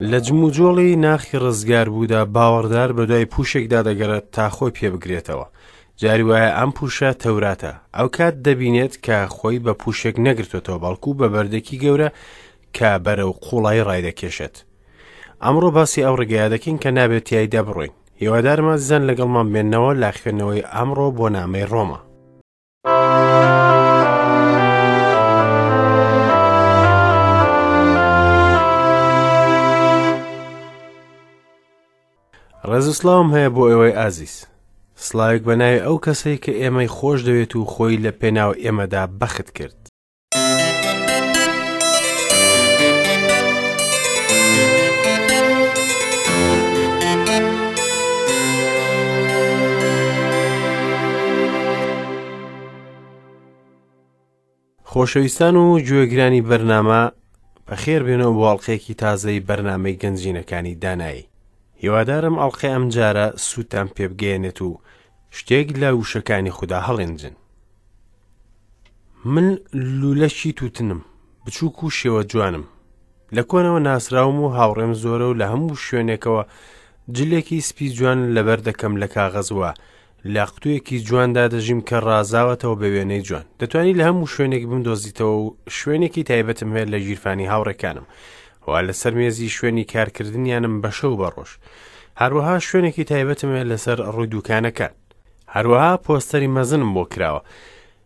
لە جموجۆڵی ناخی ڕزگاربوودا باوەڕدار بەدوای پووشێکدا دەگەڕێت تا خۆی پێ بگرێتەوە. جاری وایە ئەم پووشە تەوراتە. ئەوکات دەبینێت کە خۆی بە پووشێک نەگرتوێتەوە بەڵکو بە بەردێکی گەورە کە بەرەو قوڵایی ڕایدەکێشێت. ئەمڕۆ باسی ئەو ڕێگەیە دەکەین کە نابێت تیایدا بڕۆین. هیوادارم ئازیزان لەگەڵمان بێنەوە لە خوێندنەوەی ئەمڕۆ بۆ نامەی ڕۆما. ڕێز و سڵاوم هەیە بۆ ئێوەی ئازیز. سڵاوێک بە ناوی ئەو کەسەی کە ئێمەی خۆش دەوێت و خۆی لە پێناو ئێمەدا بەخت کرد. خۆشەویستان و گوێگرانی بەرنامە بەخێر بێنەوە بۆ ئەڵلقەیەکی تازەی بەرنامەی گەنجینەکانی دانایی هیوادارم ئەڵلقەی ئەم جارە سوودتان پێبگەیەنێت و شتێک لە وشەکانی خودا هەڵێنجن من لولەکی تووتنم، بچووک و شێوە جوانم. لە کۆنەوە ناسراوم و هاوڕێم زۆرە و لە هەموو شوێنێکەوە جلێکی سپی جوان لەبەر دەکەم لە کاغەز وە لە قوتوویەکی جواندا دەژیم کە ڕازاوەتەوە بە وێنەی جوان. دەتوانی لە هەموو شوێنێک بمدۆزیتەوە و شوێنێکی تایبەتم هەیە لە گیرفانی هاوڕێکانم و لەسەر مێزی شوێنی کارکردنیانم بە شەو بە ڕۆژ. هەروەها شوێنێکی تایبەتم هەیە لەسەر ڕووی دوکانەکان. هەروەها پۆستەری مەزنم بۆ کراوە.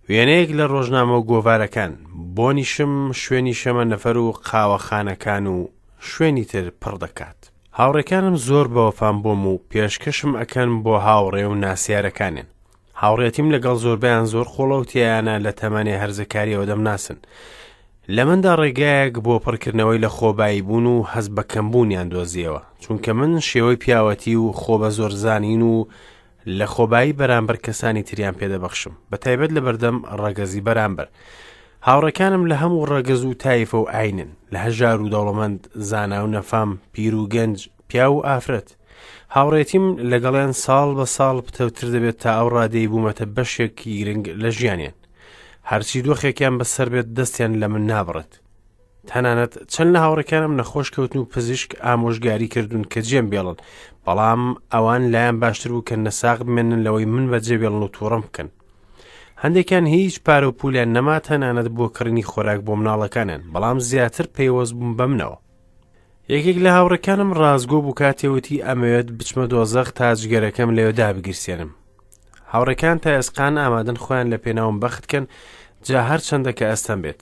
وێنەیەک لە ڕۆژنامە و گۆڤارەکان، بۆنیشم شوێنی شەمەنەفەر و قاوەخانەکان و شوێنی تر پڕ دەکات. هاوڕێکانم زۆر بەوەفان بۆم و پێشکەشم ئەکەن بۆ هاوڕێ و ناسیارەکانیان. هاوڕێتیم لەگەڵ زۆربەیان زۆر قوڵە و تێیانە لە تەمەنێ هەرزەکاریەوە دەمناسن. لە مندا ڕێگایەک بۆ پڕکردنەوەی لە خۆبایی بوون و هەست بە کەمبوونیان دۆزیەوە، چونکە من شێوەی پیاوەتی و خۆ بە زۆرزانین و لە خۆبایی بەرامبەر کەسانی تریان پێدەبەخشم، بە تایبەت لە بەردەم ڕەگەزی بەرامبەر. هاوڕێکانم لە هەموو ڕەگەز و تایفە و ئاینن، لە هەژار و دەوڵەمەند، زانا و نەفام، پیر و گەنج، پیاو و ئافرەت. هاوڕێتیم لەگەڵیان ساڵ بە ساڵ پتەوتر دەبێت تا ئەو ڕادەی بوومەتە بەشێکی گرنگ لە ژیانیان. هەرچی دۆخێکیان بەسەر بێت دەستیان لە من نابڕێت. تەنانەت چەند لە هاوڕێکانم نەخۆش کەوتن و پزیشک ئامۆژگاری کردوون کە جێم بێڵن بەڵام ئەوان لایەن باشتر بوو کە نەساغ بمێنن لەوەی من بەجێ بێڵن و تووڕم بکەن هەندێکیان هیچ پارە و پولیان نەما تەنانەت بۆ کڕینی خۆراک بۆ مناڵەکانیان بەڵام زیاتر پەیوەست بووم بە منەوە یەکێک لە هاوڕێکانم ڕاستگۆ بوو کاتێ وتی ئەمەوێت بچمە دۆزەخ تا جگەرەکەم لەوێ دابگیرسێنم هاوڕێکان تا ئێسقان ئامادەن خۆیان لە پێناوم بەخت کەن جا هەرچەندە کە ئەستەم بێت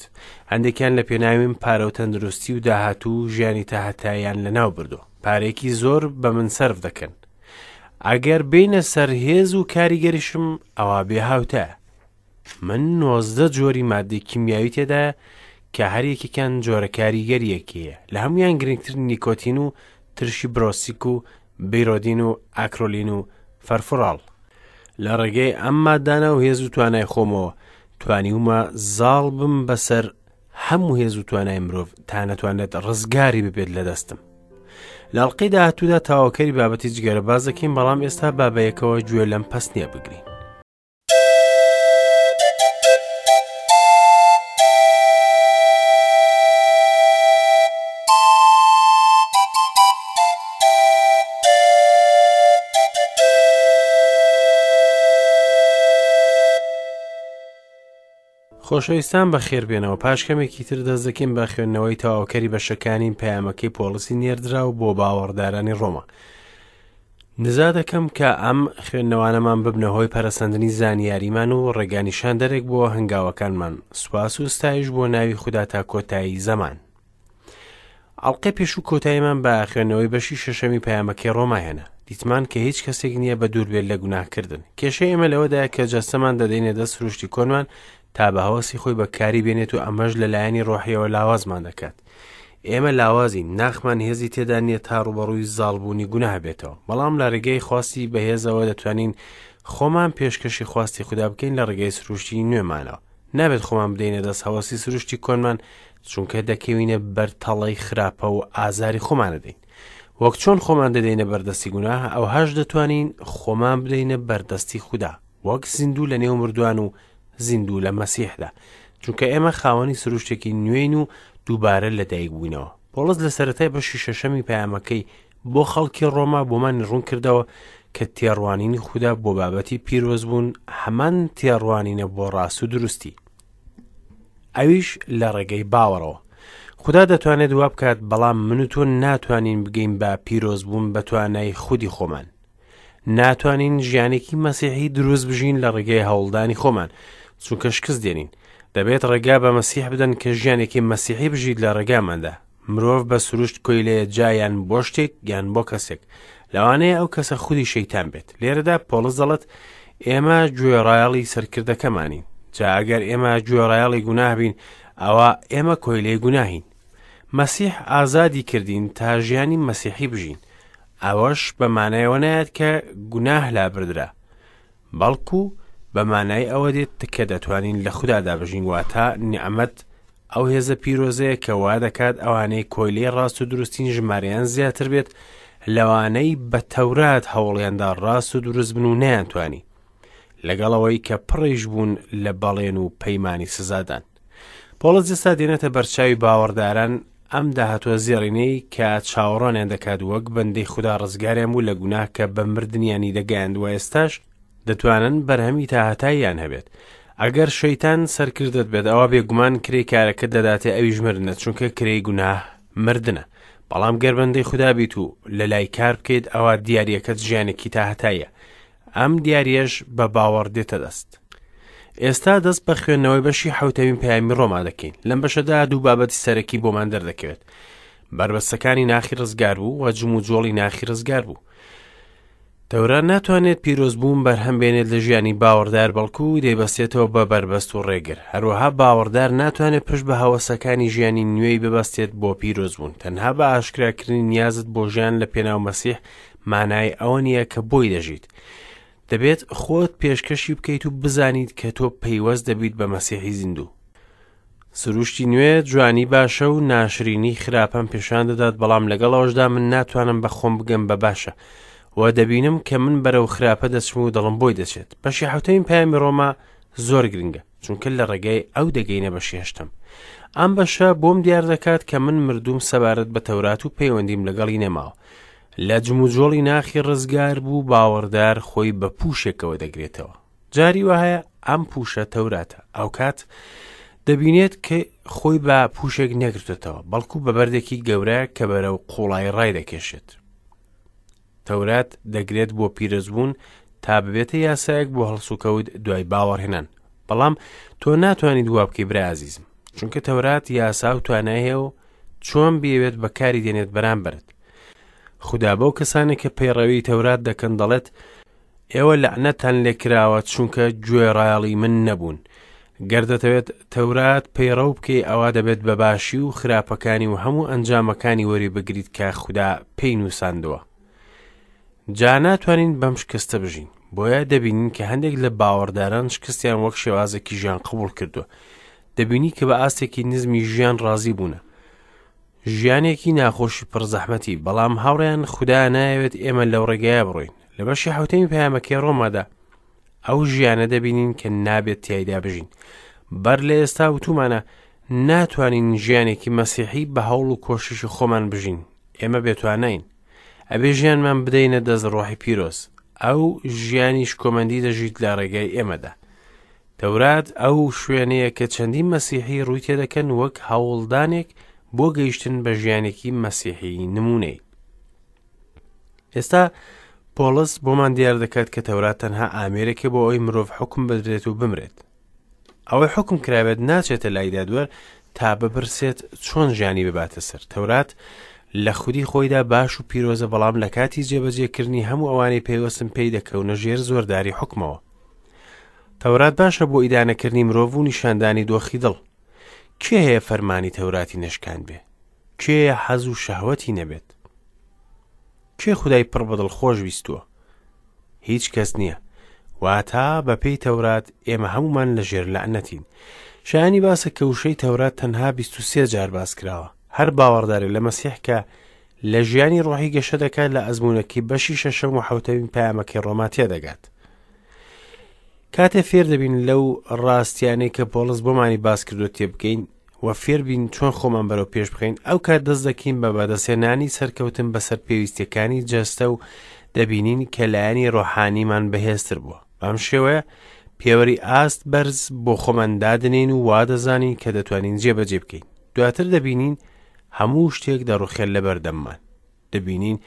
هەندێکیان لە پێناویم پارە و تەندروستی و داهاتوو و ژیانی تاهەتاییان لەناو بردووە پارێکی زۆر بە من سەرف دەکەن ئەگەر بینە سەر هێز و کاریگەریشم ئەوا بێ هاوتایە من 19 جۆری مادەی کیمیاوی تێدایە کە هەر یەکێکیان جۆرە کاریگەریەکی هەیە لە هەمویان گرنگتر نیکۆتین و ترشی برۆسیک و بیرۆدین و ئاکرۆلین و فەرفوراڵ. لە ڕێگەی ئەم مادانە و هێز و توانای خۆمەوە توانیومە زاڵ بم بەسەر هەموو هێز و توانای مرۆڤ تا نەتوانێت ڕزگاری ببێت لە دەستم. لە ئەڵقەی داهاتوودا تەواوکەری بابەتی جگەرە باس دەکەین بەڵام ئێستا با بەیەکەوە گوێ لەم پەستنیە بگرین. خۆشەویستان بەخێربێنەوە پاش کەمێکی تر دەست دەکەین بە خوێندنەوەی تەواوکەری بەشەکانی پەیامەکەی پۆڵسی نێردراو بۆ باوەڕدارانی ڕۆما نزا دەکەم کە ئەم خوێندنەوانەمان ببنە هۆی پەرەسەندنی زانیاریمان و ڕێگانیشاندەرێک بۆ هەنگاوەکانمان سوپاس و ستایش بۆ ناوی خودا تا کۆتایی زەمان ئەڵقەی پێشوو کۆتاییمان بە خوێندنەوەی بەشی شەشەمی پەیامەکەی ڕۆما هێنا دیتمان کە هیچ کەسێک نییە بە دوور بێت لە گوناهکردن کێشەی ئێمە لەوەدایە کە جەستەمان دەدەینە دەست سروشتی کۆنمان تا بە هەوەسی خۆی بەکاری بێنێت و ئەمەش لە لایەنی ڕۆحیەوە لاوازمان دەکات ئێمە لاوازین ناخمان هێزی تێدا نییە تا ڕوبەڕووی زاڵبوونی گوناه بێتەوە بەڵام لە ڕێگەی خواستی بەهێزەوە دەتوانین خۆمان پێشکەشی خواستی خودا بکەین لە ڕێگەی سروشتی نوێمانەوە نابێت خۆمان بدەینە دەست هەوەسی سروشتی کۆنمان چونکە دەکەوینە بەر تەڵەی خراپە و ئازاری خۆمان دەدەین وەک چۆن خۆمان دەدەینە بەردەستی گوناه ئەو هەش دەتوانین خۆمان بدەینە بەردەستی خودا وەک زیندوو لە نێو مردوان و زیندوو لە مەسیحدا چونکە ئێمە خاوەنی سروشتێکی نوێین و دووبارە لەدایک بووینەوە. پۆڵس لە سەرەتای بەشی شەشەمی پەیامەکەی بۆ خەڵکی ڕۆما بۆمانی ڕوون کردەوە کە تێڕوانینی خودا بۆ بابەتی پیرۆزبوون هەمان تێڕوانینە بۆ ڕاست و دروستی، ئەویش لە ڕێگەی باوەڕەوە. خودا دەتوانێت وا بکات، بەڵام من و تۆ ناتوانین بگەین بە پیرۆزبوون بە توانای خودی خۆمان. ناتوانین ژیانێکی مەسیحی دروست بژین لە ڕێگەی هەوڵدانی خۆمان، چونکە شکست دێنین. دەبێت ڕێگا بە مەسیح بدەن کە ژیانێکی مەسیحی بژیت لە ڕێگاماندا. مرۆڤ بە سروشت کۆیلەیە جا یان بۆ شتێک یان بۆ کەسێک. لەوانەیە ئەو کەسە خودی شەیتان بێت. لێرەدا پۆڵس دەڵێت ئێمە گوێڕایەڵی سەرکردەکەمانین. جا ئەگەر ئێمە گوێڕایەڵی گوناه بین، ئەوا ئێمە کۆیلەی گوناهین. مەسیح ئازادی کردین تا ژیانی مەسیحی بژین. ئەوەش بە مانای ئەوە نایەت کە گوناه لابردرا، بەڵکو بە مانای ئەوە دێت کە دەتوانین لە خودادا بژین، واتە نیعمەت ئەو هێزە پیرۆزەیە کە وا دەکات ئەوانەی کۆیلەی ڕاست و دروستین ژمارەیان زیاتر بێت لەوانەی بە تەورات هەوڵیاندا ڕاست و دروست بن و نەیانتوانی، لەگەڵ ئەوەی کە پڕیش بوون لە بەڵێن و پەیمانی سزادان. پۆڵس ئێستا دێنێتە بەرچاوی باوەڕداران ئەم داهاتووە زێڕینەی کە چاوەڕوانیان دەکات وەک بەندەی خودا ڕزگاریان بوو لە گوناه کە بە مردنیانی دەگەیاند و ئێستاش دەتوانن بەرهەمی تاهەتاییان هەبێت. ئەگەر شەیتان سەرکردەت بێت ئەوا بێگومان کرێی کارەکەت دەداتێ ئەویش مردنە چونکە کرێی گوناه مردنە. بەڵام گەر بەندەی خودا بیت و لە لای کار بکەیت ئەوا دیاریەکەت ژیانێکی تاهەتاییە. ئەم دیاریەش بە باوەڕ دێتە دەست. ئێستا دەست بە خوێندنەوەی بەشی حەوتەمین پەیامی ڕۆما دەکەین. لەم بەشەدا دوو بابەتی سەرەکی بۆمان دەردەکەوێت. بەربەستەکانی ناخی ڕزگار بوو و جموجۆڵی ناخی ڕزگار بوو. تەورات ناتوانێت پیرۆزبوون بەرهەم بێنێت لە ژیانی باوەڕدار بەڵکو دەیبەستێتەوە بە بەربەست و ڕێگر. هەروەها باوەڕدار ناتوانێت پشت بە هەوەسەکانی ژیانی نوێی ببەستێت بۆ پیرۆزبوون. تەنها بە ئاشکراکردنی نیازت بۆ ژیان لە پێناو مەسیح مانای ئەوە نییە کە بۆی دەژیت. دەبێت خۆت پێشکەشی بکەیت و بزانیت کە تۆ پەیوەست دەبیت بە مەسیحی زیندوو. سروشتی نوێ جوانی باشە و ناشرینی خراپەم پێشان دەدات بەڵام لەگەڵ ئەوەشدا من ناتوانم بە خۆم بگەم بە باشە و دەبینم کە من بەرەو خراپە دەچم و دڵم بۆی دەچێت. بەشی حەوتەمین پەیامی ڕۆما زۆر گرنگە چونکە لە ڕێگای ئەو دەگەینە بەشی هەشتەم. ئەم بەشە بۆم دیار دەکات کە من مردووم سەبارەت بە تەورات و پەیوەندیم لەگەڵی نەماوە. لە جموجۆڵی ناخی ڕزگار بوو باوەڕدار خۆی بە پووشێکەوە دەگرێتەوە. جاری وایە ئەم پووشە تەوراتە. ئەوکات دەبینێت کە خۆی بە پووشێک نەگرتوێتەوە، بەڵکو بە بەردێکی گەورە کە بەرەو قوڵایی ڕای دەکێشێت. تەورات دەگرێت بۆ پیرۆزبوون تا ببێتە یاسایەک بۆ هەڵسوکەوت دوای باوەڕهێنان. بەڵام تۆ ناتوانیت وا بکەی برا ئازیزم، چونکە تەورات یاسا و توانای هەیە و چۆن بیەوێت بەکاری دێنێت بەرامبەرت. خودا بەو کەسانێک کە پەیڕەوی تەورات دەکەن دەڵێت ئێوە لەعنەتتان لێکراوە چونکە گوێڕایەڵی من نەبوون. گەر دەتەوێت تەورات پەیڕەو بکەی ئەوا دەبێت بە باشی و خراپەکانی و هەموو ئەنجامەکانی وەری بگریت کە خودا پێی نووساندووە. جا ناتوانین بەم شکستە بژین. بۆیە دەبینین کە هەندێک لە باوەڕداران شکستیان وەک شێوازێکی ژیان قبوڵ کردووە. دەبینی کە بە ئاستێکی نزمی ژیان ڕازی بوونە. ژیانێکی ناخۆشی پڕ زەحمەتی، بەڵام هاوڕێیان خودا نایەوێت ئێمە لەو ڕێگایە بڕۆین. لە بەشی حەوتەمی پەیامەکەی ڕۆمادا ئەو ژیانە دەبینین کە نابێت تیایدا بژین. بەر لە ئێستا وتومانە ناتوانین ژیانێکی مەسیحی بە هەوڵ و کۆششی خۆمان بژین. ئێمە بێتوانین. ئەبێ ژیانمان بدەینە دەست ڕۆحی پیرۆز. ئەو ژیانی شکۆمەندی دەژیت لە ڕێگای ئێمەدا. تەورات ئەو شوێنەیە کە چەندین مەسیحی ڕووی تێدەکەن وەک هەوڵدانێک بۆ گەیشتن بە ژیانێکی مەسیحی نمونەی. ئێستا پۆڵس بۆمان دیار دەکات کە تەورات تەنها ئامێرێکە بۆ ئەوەی مرۆڤ حکم بدرێت و بمرێت. ئەوەی حکم کرابێت ناچێتە لای دادوەر تا بپرسێت چۆن ژیانی بباتە سەر. تەورات لە خودی خۆیدا باش و پیرۆزە بەڵام لە کاتی جێبەجێکردنی هەموو ئەوانەی پەیوەستن پێی دەکەونە ژێر زۆرداری حکمەوە. تەورات باشە بۆ ئیدانەکردنی مرۆڤ و نیشاندانی دۆخی دڵ. کێ هەیە فەرمانی تەوراتی نەشکاندبێ؟ کێیە حەز و شەهوەتی نەبێت؟ کێ خودای پڕ بەدڵ خۆش ویستووە؟ هیچ کەس نییە. واتا بەپێی تەورات ئێمە هەمومان لە ژێر لەعنەتین. شایانی باسە کە وشەی تەورات تەنها 23 جار باس کراوە. هەر باوەڕدارێ لە مەسیح کە لە ژیانی ڕۆحی گەشە دەکات لە ئەزموونەکەی بەشی شەشەم و حەوتەمین پەیامەکەی ڕۆما تێدەگات. کاتێ فێر دەبین لەو ڕاستیانەی کە پۆڵس بۆمانی باس کردو تێبگەین و فێربین چۆن خۆمان بەرەو پێش بخەین، ئەو کات دەست دەکەین بە بەدەستهێنانی سەرکەوتن بەسەر پێویستیەکانی جەستە و دەبینین کە لایەنی ڕۆحانیمان بەهێزتر بووە. بەم شێوەیە پێوەری ئاست بەرز بۆ خۆمان دادەنێین و وا دەزانین کە دەتوانین جێبەجێ بکەین. دواتر دەبینین هەموو شتێک دەڕوخێت لەبەردەممان. دەبینین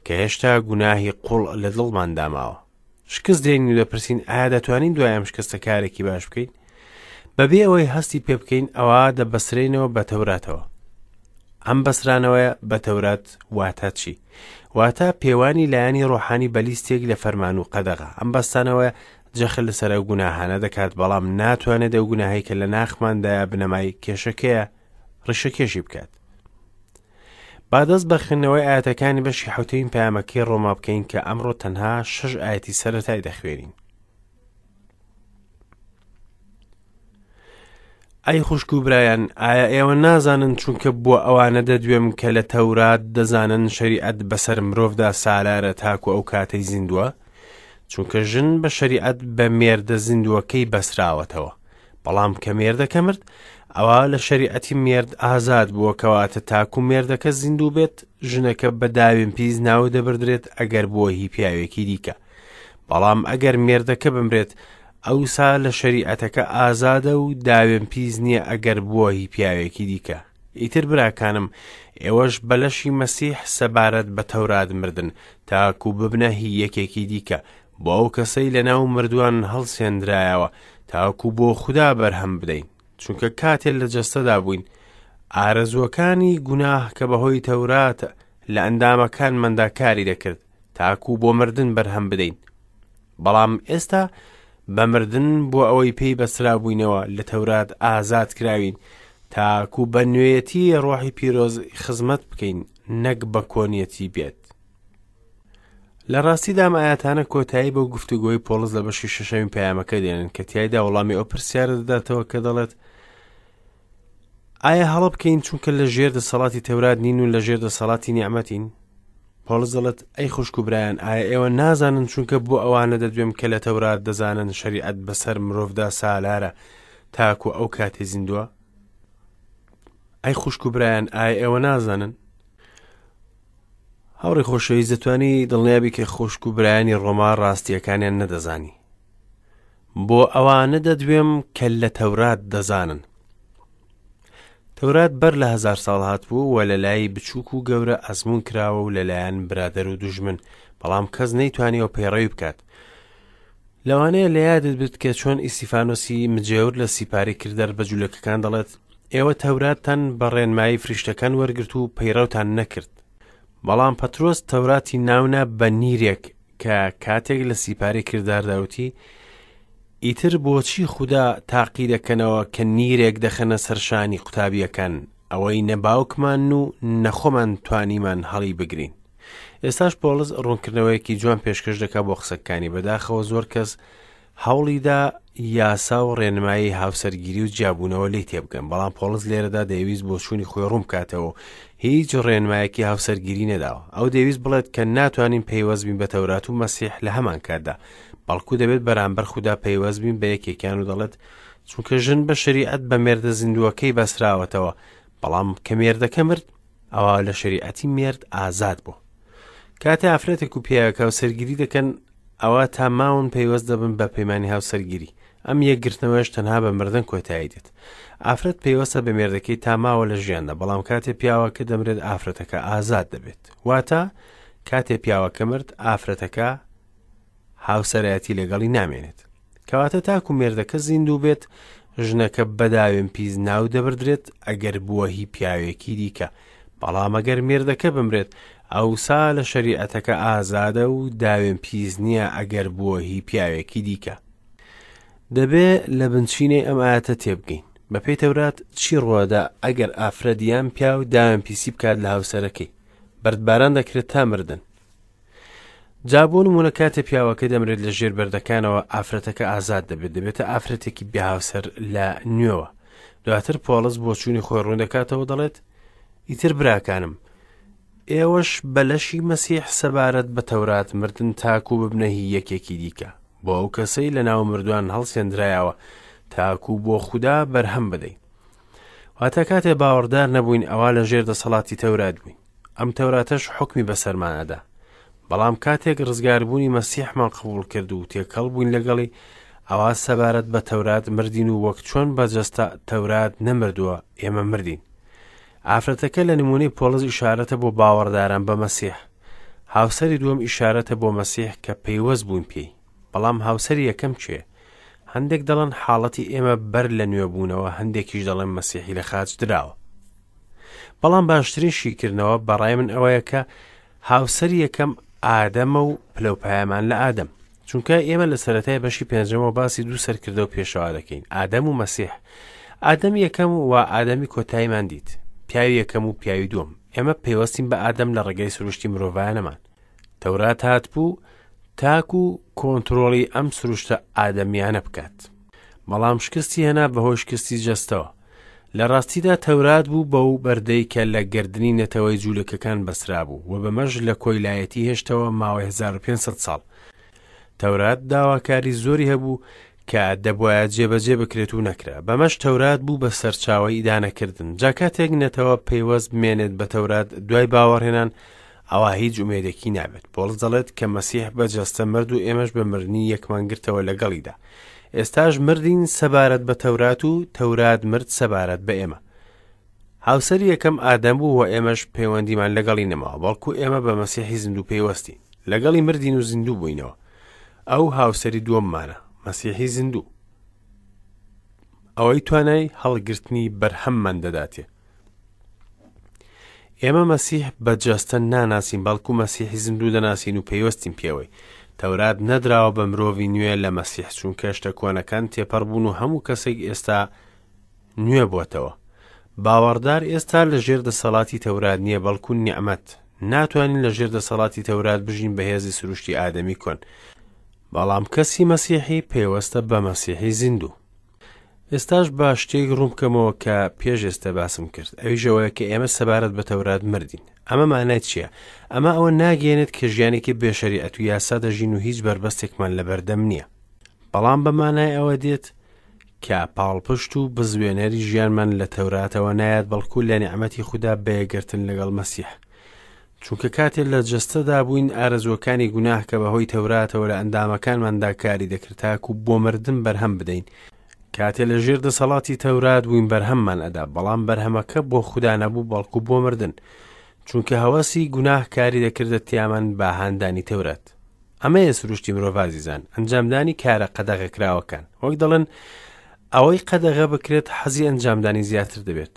کە هێشتا گوناهی قوڵ لە دڵماندا ماوە. شکست دێنین و دەپرسین ئایا دەتوانین دوای ئەم شکستە کارێکی باش بکەین؟ بەبێ ئەوەی هەستی پێ بکەین ئەوە دەبەسرێنەوە بە تەوراتەوە. ئەم بەسرانەوەیە بە تەورات واتە چی؟ واتە پێوانی لایەنی ڕۆحانی بە لیستێک لە فەرمان و قەدەغە. ئەم بەستانەوەیە جەخت لەسەر ئەو گوناهانە دەکات بەڵام ناتوانێت ئەو گوناهەی کە لە ناخماندایە بنەمای کێشەکەیە ڕیشەکێشی بکات. با دەست بە خوێندنەوەی ئایەتەکانی بەشی حەوتەمین پەیامەکەی ڕۆما بکەین کە ئەمڕۆ تەنها شەش ئایەتی سەرەتای دەخوێنین. ئەی خوشک و برایان ئایا ئێوە نازانن چونکە بۆ ئەوانە دەدوێم کە لە تەورات دەزانن شەریعەت بەسەر مرۆڤدا سالارە تاکو ئەو کاتەی زیندووە چونکە ژن بە شەریعەت بە مێردە زیندووەکەی بەسراوەتەوە بەڵام کە مێردەکە مرد ئەوا لە شەریعەتی مێرد ئازاد بووە کەواتە تاکو مێردەکە زیندوو بێت ژنەکە بە داوێن پیس ناو دەبردرێت ئەگەر بووە هی پیاوێکی دیکە بەڵام ئەگەر مێردەکە بمرێت ئەوسا لە شەریعەتەکە ئازادە و داوێن پیس نییە ئەگەر بووە هی پیاوێکی دیکە ئیتر براکانم ئێوەش بە لەشی مەسیح سەبارەت بە تەورات مردن تاکو ببنە هی یەکێکی دیکە بۆ ئەو کەسەی لەناو مردووان هەڵسێندرایەوە تاکو بۆ خودا بەرهەم بدەین چونکە کاتێ لە جەستەدا بووین ئارەزووەکانی گوناه کە بەهۆی تەورات لە ئەندامەکانماندا کاری دەکرد تاکو بۆ مردن بەرهەم بدەین بەڵام ئێستا بە مردن بۆ ئەوەی پێی بەسرابووینەوە لە تەورات ئازاد کراوین تاکو بە نوێیەتی ڕۆحی پیرۆز خزمەت بکەین نەک بە کۆنیەتی بێت لە ڕاستیدا ئەم ئاەتانە کۆتایی بەو گفتوگۆی پۆڵس لە بەشی شەشەمی پەیامەکە دێنن کە تیایدا وەڵامی ئەو پرسیارە دەداتەوە کە دەڵێت ئایا هەڵە بکەین چونکە لە ژێر دەسەڵاتی تەورات نین و لە ژێر دەسەڵاتی نیعمەتین پۆڵس دەڵێت ئەی خوشک و برایان ئایا ئێوە نازانن چونکە بۆ ئەوانە دەدوێم کە لە تەورات دەزانن شەریعەت بەسەر مرۆڤدا سالارە تاکو ئەو کاتی زیندووە ئەی خوشک و برایان ئایا ئێوە نازانن هاوڕێی خۆشەویست دەتوانی دڵنیابی کە خوشک و برایانی ڕۆما ڕاستیەکانیان نەدەزانی بۆ ئەوانە دەدوێم کە لە تەورات دەزانن تەورات بەر لە هزار ساڵ هاتبوو و لە لای بچووک و گەورە ئەزمون کراوە و لەلایەن برادەر و دوژمن بەڵام کەس نەیتوانیەوە پەیڕەوی بکات لەوانەیە لە یادت بێت کە چۆن ئیسیفانۆسی مجێور لە سیپاری کردار بە جولەکەکان دەڵێت ئێوە تەوراتتان بە ڕێنمایی فریشتەکان وەرگرت و پەیڕەوتان نەکرد بەڵام پەترۆس تەوراتی ناونا بە نیرێک کە کاتێک لە سیپاری کرداردا وتی ئیتر بۆچی خودا تاقی دەکەنەوە کە نیرێک دەخەنە سەرشانی قوتابیەکان ئەوەی نە باوکمان و نەخۆمان توانیمان هەڵی بگرین ئێستاش پۆڵس ڕوونکردنەوەیەکی جوان پێشکەش دەکا بۆ قسەکانی بەداخەوە زۆر کەس هەوڵیدا یاسا و ڕێنمایی هاوسەرگیری و جیابوونەوە لێی تێبگەن بەڵام پۆڵس لێرەدا دەیویست بۆچوونی خۆی ڕوون بکاتەوە و هیچ ڕێنمایەکی هاوسەرگیری نەداوە ئەو دەیویست بڵێت کە ناتوانین پەیوەست بین بە تەورات و مەسیح لە هەمان کاتدا بەڵکو دەبێت بەرامبەر خودا پەیوەست بین بە یەکێکیان و دەڵێت چونکە ژن بە شەریعەت بە مێردە زیندووەکەی بەسراوەتەوە بەڵام کە مێردەکە مرد ئەوا لە شەریعەتی مێرد ئازاد بوو کاتێ ئافرەتێک و پیاوێک هاوسەرگیری دەکەن ئەوا تا ماون پەیوەست دەبن بە پەیمانی هاوسەرگیری ئەم یەکگرتنەوەش تەنها بە مردن کۆتایی دێت ئافرەت پەیوەستە بە مێردەکەی تا ماوە لە ژیاندا بەڵام کاتێ پیاوەکە دەمرێت ئافرەتەکە ئازاد دەبێت واتە کاتێ پیاوەکە مرد ئافرەتەکە هاوسەرایەتی لەگەڵی نامێنێت کەواتە تاکو مێردەکە زیندوو بێت ژنەکە بەداوێن پیس ناو دەبردرێت ئەگەر بووە هی پیاوێکی دیکە بەڵام ئەگەر مێردەکە بمرێت ئەوسا لە شەریعەتەکە ئازادە و داوێن پیس نییە ئەگەر بووە هی پیاوێکی دیکە دەبێ لە بنچینەی ئەم ئاەتە تێبگەین بەپێی تەورات چی ڕوەدا ئەگەر ئافرەت یان پیاو داوێن پیسی بکات لە هاوسەرەکەی بەردباران دەکرێت تا مردن جا بۆ نمونە کاتێ پیاوەکە دەمرێت لە ژێر بەردەکانەوە ئافرەتەکە ئازاد دەبێت دەبێتە ئافرەتێکی بێهاوسەر لە نوێوە دواتر پۆڵس بۆچوونی خۆی ڕوون دەکاتەوە دەڵێت ئیتر براکانم ئێوەش بە لەشی مەسیح سەبارەت بە تەورات مردن تاکو ببنە هی یەکێکی دیکە بۆ ئەو کەسەی لە ناو مردوان هەڵسێندرایەوە تاکو بۆ خودا بەرهەم بدەین. واتە کاتێ باوەڕدار نەبووین ئەوا لە ژێر دەسەڵاتی تەورات بووین. ئەم تەوراتەش حوکمی بەسەرمان ئەدا. بەڵام کاتێک ڕزگاربوونی مەسیحمان قبوڵ کرد و تێکەڵ بووین لەگەڵی، ئەوا سەبارەت بە تەورات مردین و وەک چۆن بە جەستە تەورات نەمردووە، ئێمە مردین. ئافرەتەکە لە نموونەی پۆڵس ئیشارەتە بۆ باوەڕداران بە مەسیح. هاوسەری دووەم ئیشارەتە بۆ مەسیح کە پەیوەست بووین پێی. بەڵام هاوسەری یەکەم کێیە؟ هەندێک دەڵێن حاڵەتی ئێمە بەر لە نوێبوونەوە، هەندێکیش دەڵێن مەسیحی لە خاچ دراوە. بەڵام باشترین شیکردنەوە بەڕای من ئەوەیە کە هاوسەری یەکەم ئادەمە و پلەوپایەمان لە ئادەم. چونکە ئێمە لە سەرەتای بەشی پێنجەمەوە باسی دوو سەرکردە و پێشەوا دەکەین، ئادەم و مەسیح. ئادەم یەکەم و ئادەمی کۆتاییمان دیت، پیاوی یەکەم و پیاوی دووەم. ئێمە پەیوەستین بە ئادەم لە ڕێگەی سروشتی مرۆڤانەمان. تەورات هاتبوو تاکو کۆنترۆڵی ئەم سروشتە ئادەمیانە بکات. بەڵام شکستی هێنا بەهۆی شکستی جەستەوە. لە ڕاستیدا تەورات بوو بەو بەردەی کە لە گەردنی نەتەوەی جوولەکەکان بەسترابوو و بەمەش لە کۆیلایەتی هێشتەوە ماوەی 1500 ساڵ. تەورات داواکاری زۆری هەبوو کە دەبوایە جێبەجێ بکرێت و نەکرا. بەمەش تەورات بوو بە سەرچاوەی ئیدانەکردن. جا کاتێک نەتەوە پەیوەست بمێنێت بە تەورات دوای باوەڕهێنان ئەوا هیچ ئومێدێکی نابێت. پۆڵس دەڵێت کە مەسیح بە جەستە مرد و ئێمەش بە مردنی یەکمان گرتەوە لەگەڵیدا. ئێستاش مردین سەبارەت بە تەورات و تەورات مرد سەبارەت بە ئێمە. هاوسەری یەکەم ئادەم بوو و ئێمەش پەیوەندیمان لەگەڵی نەماوە، بەڵکو ئێمە بە مەسیحی زیندوو پەیوەستین. لەگەڵی مردین و زیندوو بووینەوە. ئەو هاوسەری دووەممانە، مەسیحی زیندوو. ئەوەی توانای هەڵگرتنی بەرهەممان دەداتێ. ئێمە مەسیح بە جەستە ناناسین بەڵکو مەسیحی زیندوو دەناسین و پەیوەستین پێوەی. تەورات نەدراوە بە مرۆڤی نوێ لە مەسیح چونکە شتە کۆنەکان تێپەڕ بوون و هەموو کەسێک ئێستا نوێ بۆتەوە. باوەڕدار ئێستا لە ژێر دەسەڵاتی تەورات نییە بەڵکو نیعمەت. ناتوانین لە ژێر دەسەڵاتی تەورات بژین بە هێزی سروشتی ئادەمی کۆن. بەڵام کەسی مەسیحی پەیوەستە بە مەسیحی زیندوو. ئێستاش با شتێک ڕوون بکەمەوە کە پێش ئێستا باسم کرد ئەویش ئەوەیە کە ئێمە سەبارەت بە تەورات مردین ئەمە مانای چییە؟ ئەمە ئەوە ناگەیەنێت کە ژیانێکی بێ شەریعەت و یاسا دەژین و هیچ بەربەستێکمان لەبەردەم نییە بەڵام بە مانای ئەوە دێت کە پاڵپشت و بزوێنەری ژیانمان لە تەوراتەوە نایەت بەڵکو لە نیعمەتی خودا بە یەکگرتن لەگەڵ مەسیح چونکە کاتێ لە جەستەدا بووین ئارەزووەکانی گوناه کە بەهۆی تەوراتەوە لە ئەندامەکانماندا کاری دەکرد تاکو بۆ مردن بەرهەم بدەین کاتێ لە ژێر دەسەڵاتی تەورات بووین بەرهەممان ئەدا بەڵام بەرهەمەکە بۆ خودا نەبوو بەڵکو بۆ مردن چونکە هەوەسی گوناه کاری دەکردە تیامان بە هاندانی تەورات ئەمەیە سروشتی مرۆڤ ئازیزان ئەنجامدانی کارە قەدەغەکراوەکان وەک دەڵێن ئەوەی قەدەغە بکرێت حەزی ئەنجامدانی زیاتر دەبێت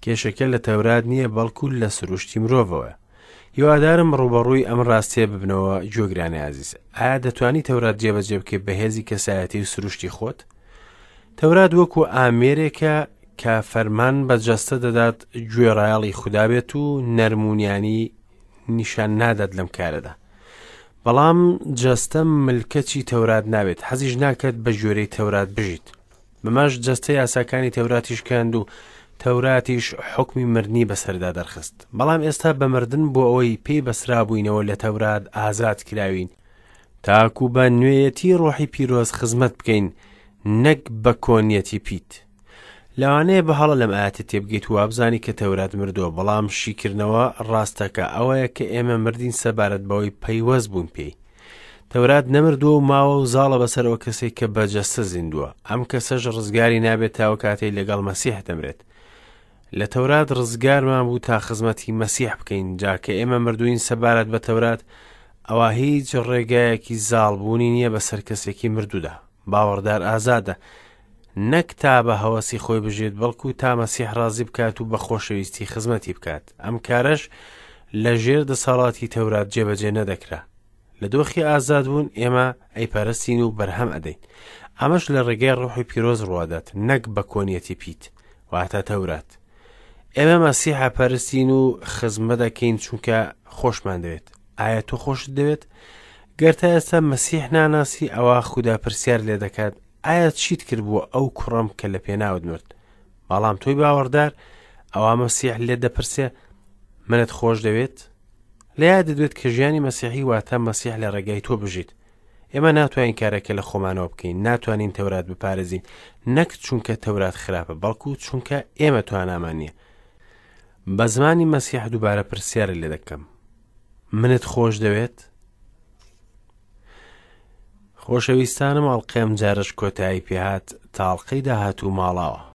کێشەکە لە تەورات نییە بەڵکو لە سروشتی مرۆڤەوەیە. هیوادارم ڕووبەڕووی ئەم ڕاستیە ببنەوە گوێگرانی ئازیز. ئایا دەتوانی تەورات جێبەجێ بکەیت بە هێزی کەسایەتی و سروشتی خۆت؟ تەورات وەکو ئامێرێکە کە فەرمان بە جەستە دەدات گوێڕایەڵی خودا بێت و نەرمونیانی نیشان نادات لەم کارەدا. بەڵام جەستە ملکەچی تەورات نابێت، حەزیش ناکات بە گوێرەی تەورات بژیت. بەمەش جەستە یاساکانی تەوراتی شکاند و تەوراتیش حوکمی مردنی بەسەردا دەرخست. بەڵام ئێستا بە مردن بۆ ئەوەی پێی بەسرابووینەوە لە تەورات ئازاد کراوین، تاکو بە نوێیەتی ڕۆحی پیرۆز خزمەت بکەین نەک بە کۆنیەتی پیت. لەوانەیە بە هەڵە لەم ئایەتە تێبگەیت و وابزانی کە تەورات مردووە، بەڵام شیکردنەوە ڕاستەکە ئەوەیە کە ئێمە مردین سەبارەت بەوەی پەیوەست بوون پێی. تەورات نەمردووە و ماوە و زاڵە بەسەر ئەو کەسەی کە بە جەستە زیندووە، ئەم کەسەش ڕزگاری نابێت تا ئەو کاتەی لەگەڵ مەسیح دەمرێت. لە تەورات ڕزگارمان بوو تا خزمەتی مەسیح بکەین، جا کە ئێمە مردووین سەبارەت بە تەورات، ئەوا هیچ ڕێگایەکی زاڵبوونی نییە بەسەر کەسێکی مردوودا. باوەڕدار ئازادە، نەک تا بە هەوەسی خۆی بژێت، بەڵکو تا مەسیح ڕازی بکات و بە خۆشەویستی خزمەتی بکات. ئەم کارەش لە ژێر دەسەڵاتی تەورات جێبەجێ نەدەکرا. لە دۆخی ئازادبوون ئێمە ئەیپەرستین و بەرهەم ئەدەین. ئەمەش لە ڕێگای ڕۆحی پیرۆز ڕوادات، نەک بە کۆنیەتی پیت، واتە تەورات. ئێمە مەسیح ئەپەرستین و خزمەت ئەکەین چونکە خۆشمان دەوێت. ئایا تۆ خۆشت دەوێت؟ گەر تا ئێستا مەسیح ناناسی ئەوا خودا پرسیار لێ دەکات ئایا چیت کرد بۆ ئەو کوڕەم کە لە پێناوت مرد؟ بەڵام تۆی باوەڕدار ئەوا مەسیح لێت دەپرسێ منت خۆش دەوێت؟ لە یادت بێت کە ژیانی مەسیحی واتە مەسیح لە ڕێگای تۆ بژیت. ئێمە ناتوانین کارەکە لە خۆمانەوە بکەین، ناتوانین تەورات بپارێزین، نەک چونکە تەورات خراپە، بەڵکو چونکە ئێمە توانامان نییە. بە زمانی مەسیح دووبارە پرسیارت لێ دەکەم، منت خۆش دەوێت؟ خۆشەویستانم ئەڵقەی ئەمجارەش کۆتایی پێهات، تا ئەڵقەی داهاتوو ماڵاوە.